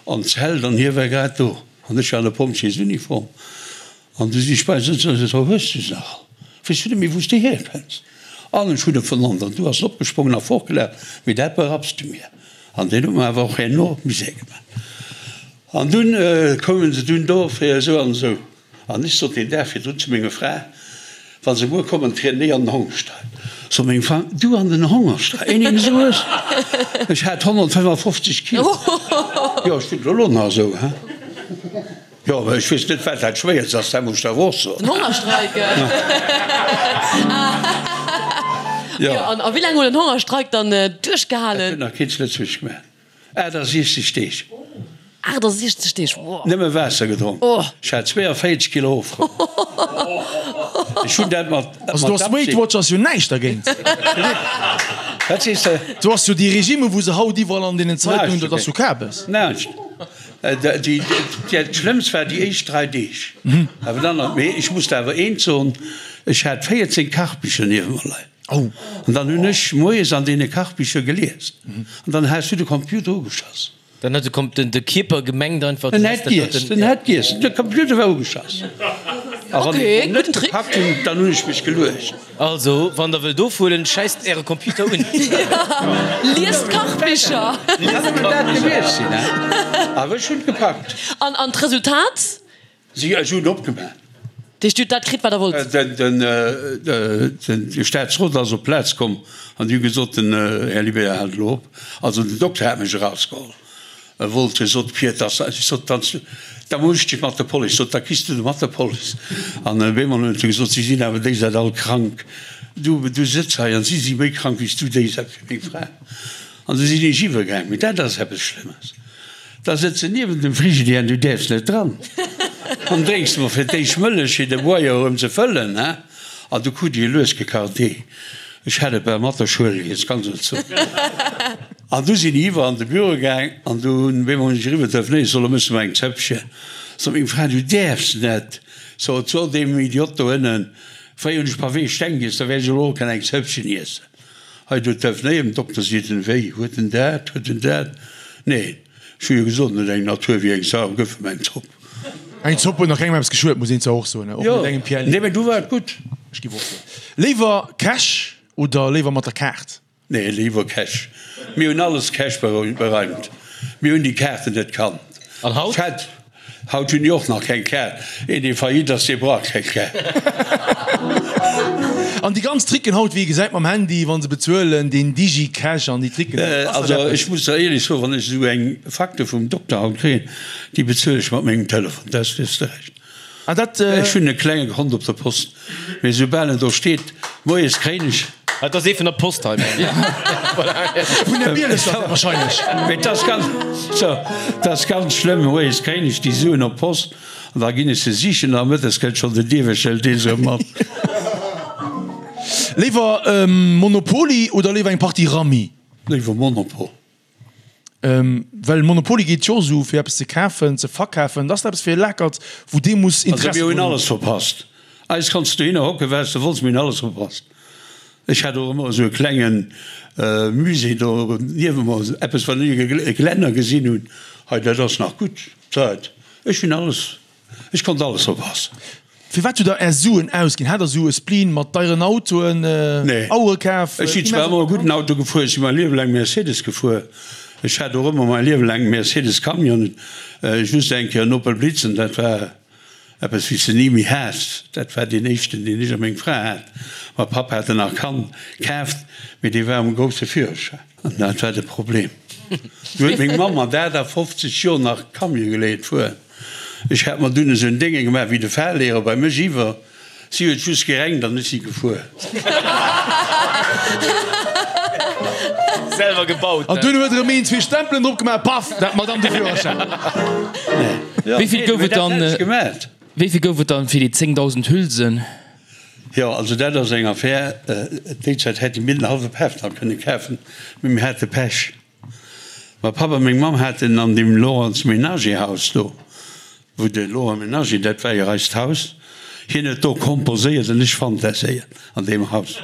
an d'Zelt an hie war grad do an ech war an der Pompjeesuniform. An du si ech bei sëtzen an ech sot, Hues du se nach all? Weess du net méi wou s de hierkënns? An ech hunn e vernannt an du ass en opgesprongen a fortgelaf, mee dat berapps de mir. An deen huet mer awer och herno Misär gemaach. An dunn koumen se dunn do fir esou an esou. An ech sot deen Dag virdrun zu menger Fra, Wa se muer kommen, trieden ech an den Hongerstreik. Sot meng Fra, Du an den Hongerstreik? Een deen esou hues? Ech hat 155 Kilo. Jo, ech sinn elo nach esou, he? Jo, mä ech weess net, wat dat Schwéierst ass, dat muss ech der awer och soen. Den Hongerstreik? Jo. An a wéi laang huet den Hongerstreik dann duerchgehalen? Dat huet nach keen zu Lëtzebuerg gemaach. 68 Deeg. 68 Deeg, wow. Nëmme Waasser gedronk. Ech hat 42 Kilo ofgeholl. Ech hunn dat mat Also do ass Weight Watchers jo näischt dergéint. Wat sees de? Do ass jo déi Regime wou se haut iwwerall an deenen Zeitungen, dat ass jo Kabes. Näischt. Dat Schlëmmst war déi éischt 3 Deeg. Awer dann, mee ech muss der awer eent soen, ech hat 14 Kachbicher niewent mer leien. Oh. An dann hunn ech moies an deene Kachbicher gelies. An dann has du de Computer ugeschoss. Dann huet de Kom den de Kierper gemengt einfach, En hätt giess, en hätt giess, de Computer war ugeschass. A wann ech en net gepackt hunn, dann hunn ech mech geluecht. Also, wann der wëllt ofhuelen, schäisst äre Computer un. Liest Kachbicher. Kann nëmmen dat gewiescht sinn, he? Awer ech hunn et gepackt. An an d'Resultat? Si, ech hunn opgemaach. Deech Dir hutt dat kritt, wat Der wollt? De Staatsrot ass op d'Plaz komm an déi hu gesot, den Här Libert hält elo op. Also den Dokter hat mech erausgeholl. E wollt, e sot, Pier, dass, ech sot, dann, da muss ech dech mat der Police, sot, da kriss du de mat der Police. An op eemol huet e gesot, si sinn awer déi Säit all krank, du, du sëtz hei an si si méi krank wéi s du déi Säit fir meng Fra. An du sinn ech iwwergaang. Mee dat ass eppes Schlëmmes. Da sëtz de niewent dem Frigidaire an du däerfs net dran. An drénks mol fir d'éischt Mëllech fir de Boier erëm ze fëllen, he? An du krut ech e lues gekacht Dee. Ech hat et bal mat der Schuel giess, ganz ehrlech ze soen. An du sinn ech iwwer an de Büro gaang an du hunn op eemol hunn ech eriwwer telefonéiert, ech soll, elo mëss de mer eng Zëppchen. Sot meng Fra, du däerfs net. Sot, so deem Idiot do ënnen, fréier hunn ech Pavé Steng giess, da wäert ech elo och kënnen eng Zëppchen iessen. Hei do telefonéiert den Dokter, seet en, wéi, huet en dat, huet en dat? Neen, ech hu jo gesot, en huet eng Natur wéi eng Sau, gëff em eng Zopp. Eng Zopp huet nach kengem eppes geschuet, muss een zwar och soen, och net engem Pierre. Nee, mä du war et gutt. Ech giff och soen. Léiwer Cash oder léiwer mat der Kaart? Nee, léiwer Cash. Mir hunn alles Cash bereimt. Mir hunn déi Kaarten net kannt. An haut? Haut hunn déi och nach keng Kaart. Een dee faillite ass, dee brauch keng Kaart. An déi ganz Tricken haut, wéi ee gesäit mam Handy, wa se bezuelen, deen Digi-Cash an déi Tricken, ass dat eppes? Also ech muss der éierlech soen, wann ech esou eng Facture vum Dokter haut kréien, déi bezuelen ech mat mengem Telefon, dat hues de Recht. Ah dat. Ech hunn e klenge Kont op der Post, mee soubal en do steet, moies kréien ech. Et ass ee vun der Post hei. Vun der Bieleser wahrscheinlech. Mee et ass ganz, so, et ass ganz schlëmm, moies kréien ech déi Suen op d'Post an da ginn ech se sichen a mëttes kënnt schonn den Dierwächter, hëlt dee se erëm mat. Léiwer Monopoly oder léiwer eng Partie Rammi? Léiwer Monopol. Well Monopoly geet jo esou fir eppes ze kafen, ze verkafen, dat ass eppes fir e Lakert, wou dee muss Also Interessi mir hunn drun hunn. alles verpasst. Eis kanns du dohinner hocken, wat s de wolls, mir hunn alles verpasst. Ech hat och ëmmer esou e klenge Musée do niewent mer, eppes wat ech e Glänner gesinn hunn, hei dat ass nach gutt Zäit. Ech hunn alles Ech konnt alles verpassen. Fir wat hutt der är Suen ausginn? Hat der sou e Spleen mat deieren Autoen, Nee. Auere kaf? Ech sinn zwar ëmmer e gudden Auto gefuer, ech si mäi Liewe laang Mercedes gefuer. Ech hat och ëmmer mäi Liewe laang Mercedes Camion, just eng Kéier en Opel Blitz an dat war eppes wéi s de ni méi has. Dat war deen éischten, deen ech a meng Fra hat. Mäi Papp hat en nach kann kaaft, mee dee war um grousse Führerschäin. An dat war de Problem. Du huet meng Mamm mat 58 Joer nach Camion geléiert fueren. Ech hat mer dunn esou en Dénge gemaach wéi de Fahrlehrer bei mech iwwer. Si huet just gerenkt an ech si gefuer. Selwer gebaut. An dunn huet erëm een zwee Stempelen drop gemaach, paff, dat Madame de Führerschäin. Wéi vill gouf et dann, wéi vill gouf et dann fir déi 10.000 Hülsen? Jo, also dat ass eng Affär. Déi Zäit hätte mir den hallwe Pafendall kënne kafen, mee mir hate Pech. Mäi Papp a meng Mamm haten an deem Lorentz Menager Haus do, wou de Laurent Menager, dat war jo eist Haus, hien huet do komposéiert an ech fantaséiert an deem Haus.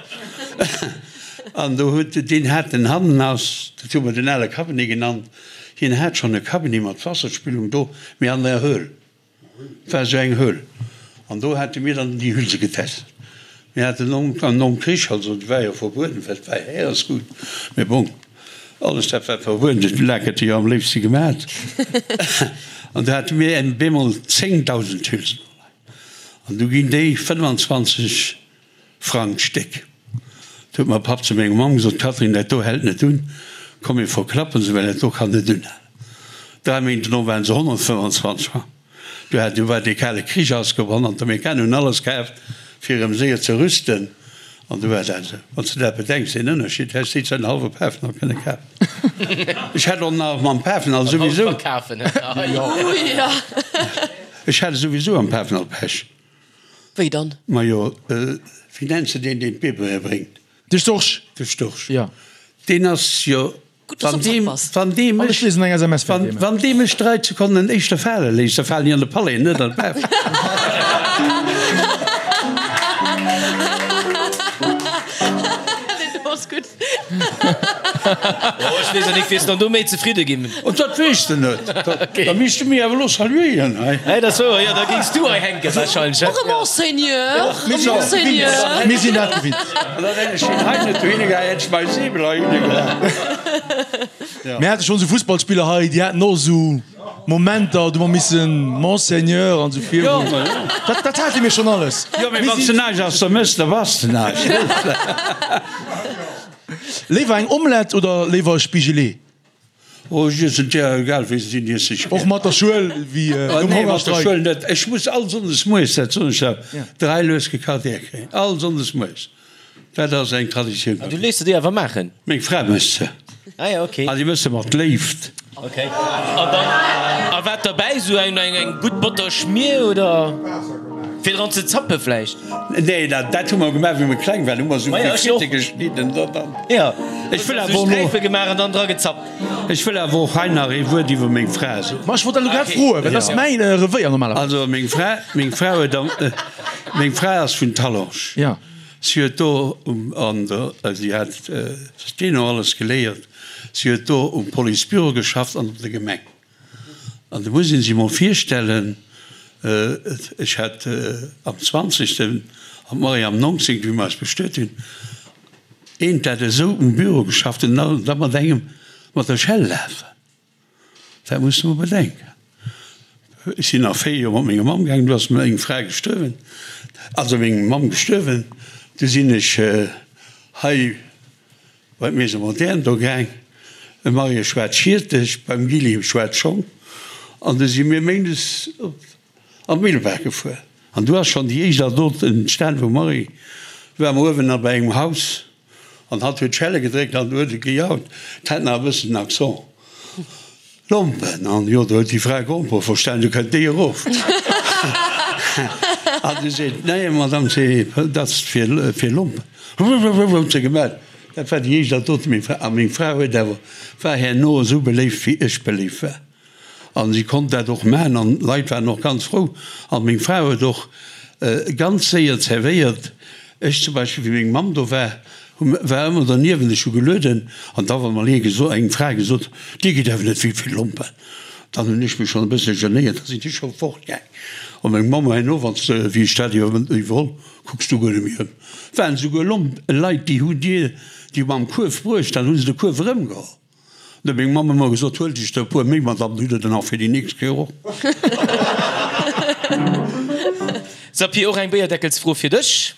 An do huet, deen hat en Hannenhaus, dat hu mer den ale Cabinet genannt, hien hat schonn e Cabinet mat Wasserspülung do, mee an der Höhl. Et war esou eng Höhl an do hate mir dann déi Hülse getest. Mir haten nom Krich, also et war jo verbueden, well et war Häeresgut, mee bon, alles dat wat verbueden ass, de Lak hätt e jo am léifste gemat. An do hate mir bemol 10.000 Hülsen an du ginn déi 25 Frang d'Stéck. Du huet mäi Papp zu menger Mamm gesot, Catherine, dat do hält net un, komm mir verklappen se, well dat do kann net unhalen. Dräi Méint dono waren se 125 Frang. Du hat, du war dee kale Krich ausgebrannt an d'Amerikaner hunn alles kaaft, fir erëm séier ze rüsten. An du war dat esou. Wann s de dat bedenks, deen Ënnerscheed, häss déi Zäit en hallwe Pafenall kënne kafen. Ech hätt och nach mam Pafenall souwisou. Ech hat souwisou am Pafenall Pech. Wéi dann? Majo, wéi nenns de deen, deen d'Bierbeere bréngt? De Storch. De Storch. Jo. Deen ass jo, Gutt, dass wann du am dee, Zack bass. wann dee An ech mech, liesen eng SMS fir wann, dee. wann dee mech 3 Sekonnen éischter fale léisst, da falen ech an de Palais, net an d'Baf. Deen ass gutt. Oh, ech weess net, wiers dann do méi zefridde ginn. Oh, dat weess de net. Da misst de mir awer elo saluéieren hei. Hei, dat ass wouer, jo, da géings du hei hänken wahrscheinlech, Och e Monseigneur, e Monseigneur. Mir sinn dat gewinnt. An dann hätt ech hien hei net dohinne gehaen, hätt ech mäi Säbel heihinne gehaen. Mir hate schonn esou Fussballspiller hei, déi haten och esou Momenter, do hu mer missen Monseigneur an esou virun. Dat, dat hate mir schonn alles. Jo, mee wann s de näischt aus der méchs, da bass de näischt. Léiwer eng Omelette oder léiwer e Spigelee? Oh, ech iessen d'Ier, egal wéi se sinn, iess ech gär. Och mat der Schuel, wéi nom Nee, mat der Hongerstreik? Schuel net. Ech muss all Sonndes moies, dat soen ech der, 3 lues gekacht Ier kréien. All Sonndes moies. Dat ass eng Traditioun bei Du mir. léiss se dir awer maachen? Meng Fra mécht se. Ah ja, okay. An déi mécht se mat Léift. Okay. An dann, a wat derbäi? Sou eng, eng, eng gutt Botter-Schmier oder fir dran ze zappe vläicht? Nee, dat, dat hu mer gemaach, wéi mer kleng waren. Hu mer sou Ma ja, ech och. Fritte geschnidden. Da, dann. Ja. Ech wëll Sou awer elo. Sträife gemaach an dann dra gezappt. Ech wëll awer och hei nach ee Wuert iwwer meng Fra soen. Ma ech wollt dat elo grad froen, well dat ass mäin Revéier normalerweis. Also meng Fra, meng Fra huet am, meng Fra ass vun Talange. Ja. Si huet do um, an der, si hat Steno alles geléiert, si huet do um Policebüro geschafft an op der Gemeng. An do muss ee sech emol virstellen, ech hat am zwanzegsten an d'Marie am nonzéngten, wéi mer eis bestuet hunn, eent dat esou um Büro geschafft huet an da mat engem mat der Schell lafen. Dat muss de mol bedenken. Ech sinn nach 4 Joer mat menger Mamm gaangen, du ass meng Fra gestuerwen, also meng Mamm gestuerwen, du sinn ech hei bei d'Maison Moderne do gaang, e Mariage war d'Schierteg, beim Gilly war d'Schong, an du si mir méindes op an d'Millebaach gefuer. An du ass schonn déi éischt Adot entstan vum Marie, du ware mer uewen nach bei engem Haus, An hatt huet d'Schelle gedréckt an huet et gejaut. 't hat nach e bëssen den Accent. Lompen! An jo, do huet déi Fra Grompere verstan, du kënnt déi erof. An du seet, Nee, Madame, c'est, dat ass fir, fir Lompen. Huet se gemellt. Dat war déi éischt Anekdot. Meng Fra, a meng Fra huet awer, war herno esou beléift, wéi ech beléift war. An si konnt dat och maachen an d'Leit waren och ganz frou. An meng Fra huet och ganz séier zerwéiert. Ech zum Beispill, wéi meng Mamm do war, hu war ëmmer derniewent, ech hu gelueden an da war mol ee geso eng Fra gesot, Dir gitt awer net vill vill Lompen. Dann hunn ech mech schonn e bësse genéiert, da sinn ech scho fortgaang. An meng Mamm herno, wann s de, wéi ech dat iwwerholl, kucks du guer net méi ëm. Waren esouguer Lomp Leit, déi hu dir déi mam Kuerf bruecht, dann hu se de Kuerf erëmgeholl. Huet meng Mamm ëmmer gesot, huel dech der e puer méi mat an hutt der dann och fir déi nächst Kéier och. Sapir, och eng Béierdeckelsfro fir dech.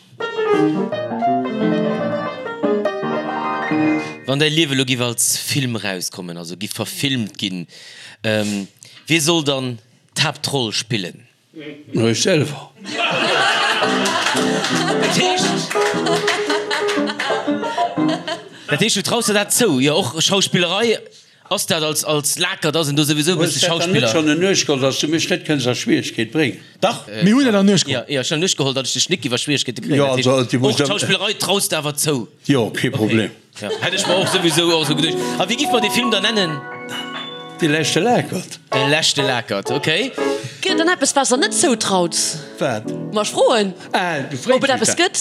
Wann däi Liewe lo giff als Film rauskommen, also giff verfilmt ginn, wie soll dann d'Haaptroll spillen? Ech selwer. Dat heescht, dat heescht, du traus der dat zou? Jo, och Schauspillerei, ass dat als, als Lakert, ass en do souwisou e bësse Hues dat dann net Schauspiller? schonn en Nuecht geholl, dass du mech net kënns a Schwieregkeet bréngen? Dach. Mir hunn et an Nuecht geholl. Jo, jo, ech hunn an Nuecht geholl, datt ech dech nik iwwer Schwieregkeete kréien. Jo, Dat heescht, also, du och muss d'Schauspillerei traus de awer zou? Jo, kee Problem. Ja, hätt ech mer och souwisou och esou geduecht. A wéi giff mer dee Film dann nennen? De leschte Lakert. De leschte Lakert, ok. Gëtt et dann eppes, wat s der net zoutraut? Wat? Ma ech froen, Ah, du fréis ob et mech eppes dat. gëtt.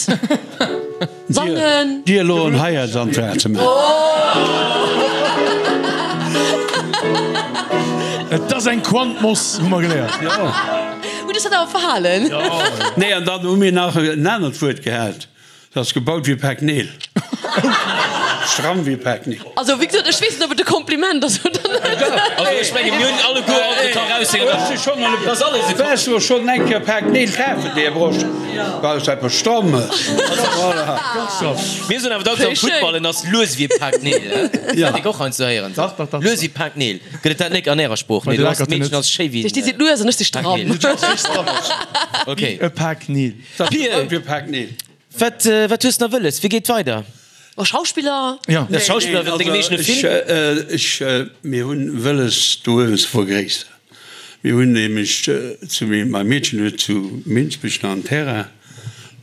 Sangen. Dir elo en Heiratsantrag ze maachen. Et ass eng Quantmoss, hu mer geléiert. Jo. Hutt Iech dat awer verhalen? Nee, an dann hu mir nach en anert Wuert gehat. Dat ass gebaut wéi e Pak Neel. Stramm wéi e Pak Neel. Also wéi gesot, ech weess net, ob et e Kompliment ass oder net. Also ech menge mir hunn alleguer alt et ka raushängen, dass alles e Waars du schonn eng Kéier e Pak Neel kafen, Här Brosch? Well et eppes Strammes. Voilà. Mir soen awer dacks am Futtball, en ass lues wéi e Pak Neel. Dat nik och heiansdo héieren. Lues wéi e Pak Neel. Gëtt et dat nik an ärer Sprooch? Nee, du ass d'Meedchen ass schéi wéi Dir sidd lues an ech si stramm. Ok. E Pak Neel. Pir, wat, wat hues nach wëlles? Wéi geet weider? Oh, Schauspiller? Ja. Nee, Schauspiller wëllt dengem eegene Film? Ech, mir hunn wëlles do uewen ze vergréisseren. Mir hunn nämlech zu, mäi Meedchen huet zu Minsbech nach en Terrain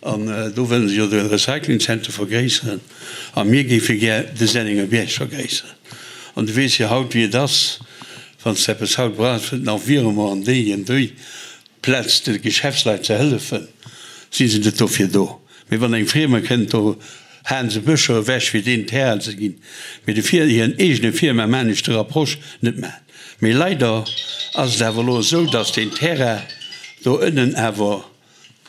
an do wëllen se jo de Recyclingzenter vergréisseren a mir géife gär de Sennengerbierg vergréisseren. An du weess jo haut wéi et ass, wann s de eppes haut brauchs, nach wiere mer an déi an déi. Plaz de Geschäftsleit ze hëllefen, si se net dofir do. Mee wann eng Friemer kënnt, do Haen se Bëscher ewech fir deen Terrain ze ginn. Mee de fir hiren eegene Firma maan ech de Rapproche net maan. Mee leider ass et awer elo esou, dass deen Terrain do ënnen awer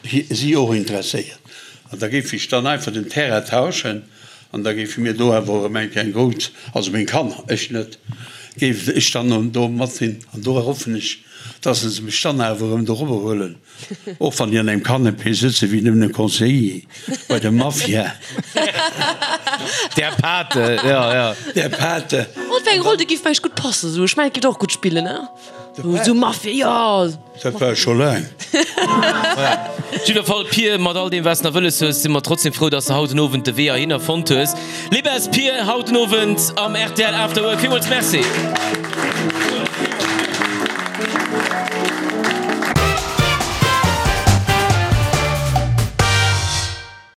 si och interesséiert. An da géif ech dann einfach den Terrain tauschen an da géife mir do awer erëm eng Kéier eng grouss, also meng Kanner, ech net, géif ech dann do mat sinn. An do hoffen ech, dass se mech dann awer erëm dorobber huelen, och wann déi an engem Canapé sëtze wéi nëmmen e Conseiller bei der Mafia. Der Pate, jo, jo. Der Pate. Wat fir eng Roll, déi géif vläicht gutt passen, esou. Ech mengen, et géif der och gutt spillen, ne? Esou Mafia, jo. Dat war ech scho laang. Op jidder Fall, Pir, mat all deem, wat s de nach wëlles hues, si mer trotzdem frou, dass de haut den Owend de Wee heihinner fonnt hues. Libbes Pir, haut den Owend am rtl After Work. Villmools Merci.